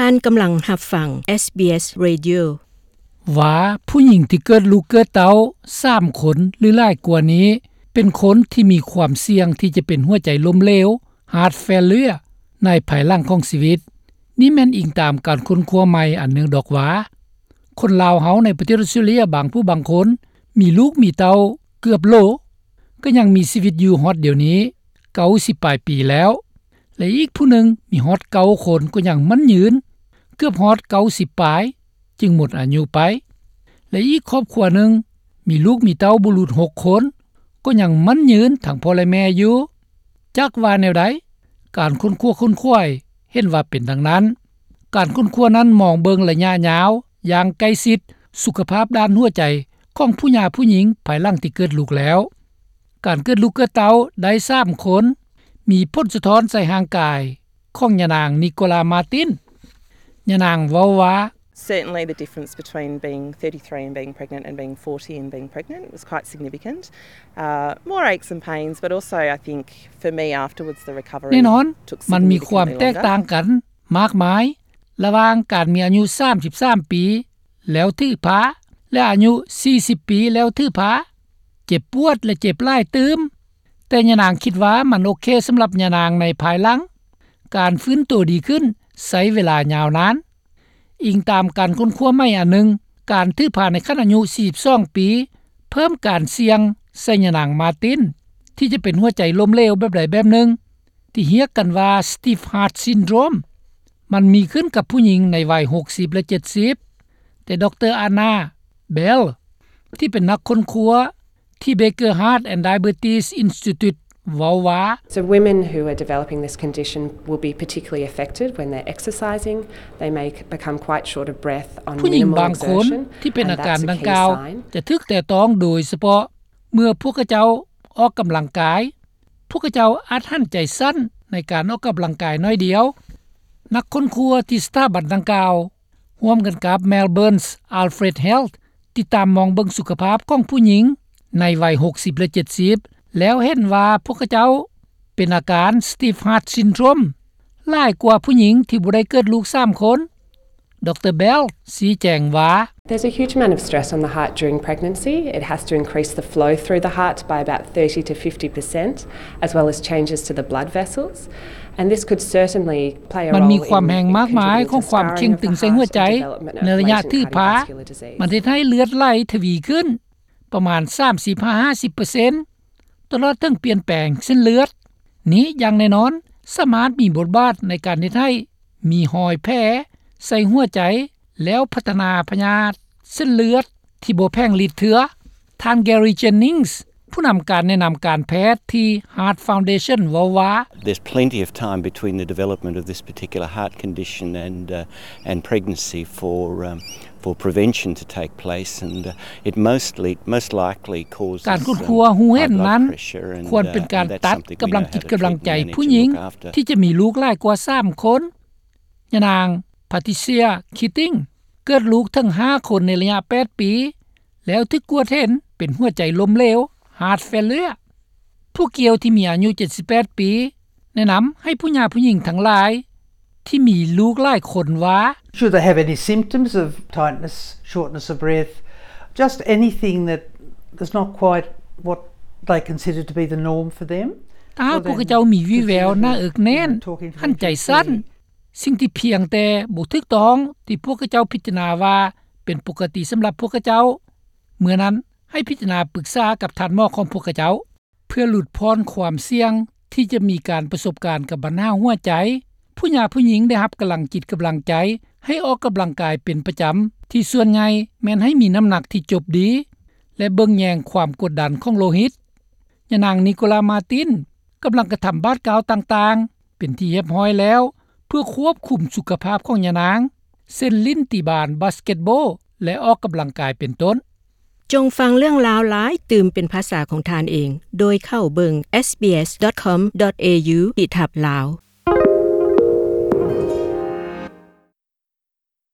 ທ່ານກຳລັງຮັບຟັງ SBS Radio. ວ່າຜູ້ຍິງທີ່ເກີດລູກເກີດເຕົ້າສາມຄົນ ຫຼື ຫຼາຍກວ່ານີ້ ເປັນຄົນທີ່ມີຄວາມສ່ຽງທີ່ຈະເປັນຫົວໃຈລົ້ມເຫຼວ heart failure ໃນພາຍຫຼັງຂອງຊີວິດ. ນີ້ແມ່ນອີງຕາມການຄົ້ນຄວ້າໃໝ່ອັນໜຶ່ງດອກວ່າ ຄົນລາວເຮົາໃນປະເທດອອສເຕຣເລັຽບາງຜູ້ບາງຄົນ ມີລູກມີເຕົ້າເກືອບໂຫຼ ກໍຍັງມີຊີວິດຢູ່ຮອດດຽວນີ້ ເກົ້າສິບປາຍປີແລ້ວ ແລະ ອີກຜູ້ໜຶ່ງມີຮອດເກົ້າຄົນກໍຍັງໝັ້ນຍືນ ເກືອບຮອດເກົ້າສິບປາຍຈຶ່ງໝົດອາຍຸໄປ ແລະ ອີກຄອບຄົວໜຶ່ງມີລູກມີເຕົ້າບໍ່ຫຼຸດຫົກຄົນ ກໍຍັງໝັ້ນຍືນທັງພໍ່ແລະແມ່ຢູ່. ຈັກວ່າແນວໃດ, ການຄົ້ນຄວ້າຄົ້ນຂວາຍເຫັນວ່າເປັນດັ່ງນັ້ນ. ການຄົ້ນຄວ້ານັ້ນມອງເບິ່ງໄລຍະຍາວຢ່າງໃກ້ຊິດສຸຂະພາບດ້ານຫົວໃຈຂອງຜູ້ຫຍ່າຜູ້ຍິງພາຍຫຼັງທີ່ເກີດລູກແລ້ວ. ການເກີດລູກເກີດເຕົ້າໄດ້ສາມຄົນ ມີຜົນສະທ້ອນໃສ່ຮ່າງກາຍຂອງຍານາງ Nicola Martin. ຍານາງເວົ້າວ່າ Certainly the difference between being thirty-three and being pregnant and being forty and being pregnant was quite significant. Uh, more aches and pains, but also I think for me afterwards the recovery ແນ່ນອນ took ມັນມີຄວາມ significantly ແຕກຕ່າງ longer. ກັນມາກມາຍ ລະຫວ່າງການມີອາຍຸສາມສິບສາມປີ ແລ້ວຖືພາ ແລະ ອາຍຸສີ່ສິບປີແລ້ວຖືພາ ເຈັບປວດ ແລະ ເຈັບຫຼາຍຕື່ມ. ແຕ່ຍານາງຄິດວ່າມັນໂອເຄສຳລັບຍານາງໃນພາຍຫຼັງ. ການຟື້ນໂຕດີຂຶ້ນໃຊ້ເວລາຍາວນານ. ອີງຕາມການຄົ້ນຄວ້າໃໝ່ອັນໜຶ່ງ, ການຖືພາໃນຂັ້ນອາຍຸສີ່ສິບສອງປີ ເພີ່ມການສ່ຽງໃສ່ຍານາງ Martin ທີ່ຈະເປັນຫົວໃຈລົ້ມເຫຼວແບບໃດແບບໜຶ່ງ ທີ່ຮຽກກັນວ່າ Stiff Heart Syndrome. ມັນມີຂຶ້ນກັບຜູ້ຍິງໃນໄວຫົກສິບ ແລະ ເຈັດສິບ. ແຕ່ ດຣ. Anna Bell ທີ່ເປັນນັກຄົ້ນຄວ້າທີ່ Baker Heart and Diabetes Institute ເວົ້າວ່າ So women who are developing this condition will be particularly affected when they're exercising. They may become quite short of breath on minimal exertion. ຜູ້ຍິງບາງຄົນທີ່ເປັນອາການດັ່ງກ່າວ ຈະຖືກແຕະຕ້ອງໂດຍສະເພາະເມື່ອພວກເຂົາເຈົ້າອອກກຳລັງກາຍ. ພວກເຂົາເຈົ້າອາດຫັນໃຈສັ້ນໃນການອອກກຳລັງກາຍໜ້ອຍດຽວ. ນັກຄົ້ນຄວ້າທີ່ສະຖາບັນດັ່ງກ່າວ ຮ່ວມກັນກັບ Melbourne's Alfred Health ຕິດຕາມມອງເບິ່ງສຸຂະພາບຂອງຜູ້ຍິງໃນໄວຫົກສິບ ແລະ ເຈັດສິບ ແລ້ວເຫັນວ່າພວກເຂົາເຈົ້າເປັນອາການ Stiff Heart Syndrome ຫຼາຍກວ່າຜູ້ຍິງທີ່ບໍ່ໄດ້ເກີດລູກສາມຄົນ. ດຣ. Bell ຊີ້ແຈງວ່າ There's a huge amount of stress on the heart during pregnancy. It has to increase the flow through the heart by about thirty to fifty percent, as well as changes to the blood vessels. And this could certainly play a role in contributing to scarring of the heart and development of latent cardiovascular disease. ມັນມີຄວາມແຮງມາກມາຍຂອງຄວາມເຄັ່ງຕຶງໃສ່ຫົວໃຈ ໃນໄລຍະຖືພາ. ມັນເຮັດໃຫ້ເລືອດໄຫຼທະວີຂຶ້ນ ປະມານສາມສິບຫາຫ້າສິບເປີເຊັນ ຕະຫຼອດເຖິງປ່ຽນແປງເສັ້ນເລືອດ. ນີ້ຢ່າງແນ່ນອນສາມາດມີບົດບາດໃນການເຮັດໃຫ້ມີຮອຍແຜໃສ່ຫົວໃຈ ແລ້ວພັດທະນາພະຍາດເສັ້ນເລືອດທີ່ບໍ່ແຜງລິດເທື່ອ. ທ່ານ Gary Jennings ຜູ້ນຳການແນະນຳການແພດທີ່ Heart Foundation ເວົ້າວ່າ There's plenty of time between the development of this particular heart condition and, uh, and pregnancy for, um, for prevention to take place, and, uh, it mostly, most likely causes, um, high blood pressure, and, uh, and that's something we know how to treat and manage and look after. ການຄົ້ນຄວ້າຮູ້ເຫັນນັ້ນ ຄວນເປັນການຕັດກຳລັງຈິດກຳລັງໃຈຜູ້ຍິງທີ່ຈະມີລູກຫຼາຍກວ່າສາມຄົນ. ຍານາງ Patricia Keating ເກີດລູກເຖິງຫ້າຄົນໃນໄລຍະແປດປີ ແລ້ວຖືກກວດເຫັນເປັນຫົວໃຈລົ້ມເຫຼວ heart failure. ຜູ້ກ່ຽວທີ່ມີອາຍຸເຈັດສິບແປດປີ ແນະນຳໃຫ້ຜູ້ຫຍ່າຜູ້ຍິງທັງຫຼາຍທີ່ມີລູກຫຼາຍຄົນວ່າ Should they have any symptoms of tightness, shortness of breath, just anything that is not quite what they consider to be the norm for them, ຖ້າຫາກພວກເຂົາເຈົ້າມີວີ່ແວວໜ້າເອິກແໜ້ນ, ຫັນໃຈສັ້ນ, ສິ່ງທີ່ພຽງແຕ່ບໍ່ຖືກຕ້ອງທີ່ພວກເຂົາເຈົ້າພິຈາລະນາວ່າເປັນປົກກະຕິສຳລັບພວກເຂົາເຈົ້າ, ເມື່ອນັ້ນໃຫ້ພິຈາລະນາປຶກສາກັບທ່ານໝໍຂອງພວກເຂົາເຈົ້າ. ເພື່ອຫຼຸດຜ່ອນຄວາມສ່ຽງທີ່ຈະມີການປະສົບການກັບບັນຫາຫົວໃຈ, ຜູ້ຫຍ່າຜູ້ຍິງໄດ້ຮັບກຳລັງຈິດກຳລັງໃຈໃຫ້ອອກກຳລັງກາຍເປັນປະຈຳ, ທີ່ສ່ວນໃຫຍ່ແມ່ນໃຫ້ມີນ້ຳໜັກທີ່ຈົບດີ ແລະ ເບິ່ງແຍງຄວາມກົດດັນຂອງໂລຫິດ. ຍານາງ Nicola Martin ກຳລັງກະທຳບາດກ້າວຕ່າງໆ ເປັນທີ່ຮຽບຮ້ອຍແລ້ວ ເພື່ອຄວບຄຸມສຸຂະພາບຂອງຍານາງ, ເຊັ່ນຫຼິ້ນຕີບານ, ບາສເກັດໂບ ແລະ ອອກກຳລັງກາຍເປັນຕົ້ນ. ຈົ່ງຟັງເລື່ອງລາວຫຼາຍຕື່ມເປັນພາສາຂອງທ່ານເອງ ໂດຍເຂົ້າເບິ່ງ sbs.com.au/lao.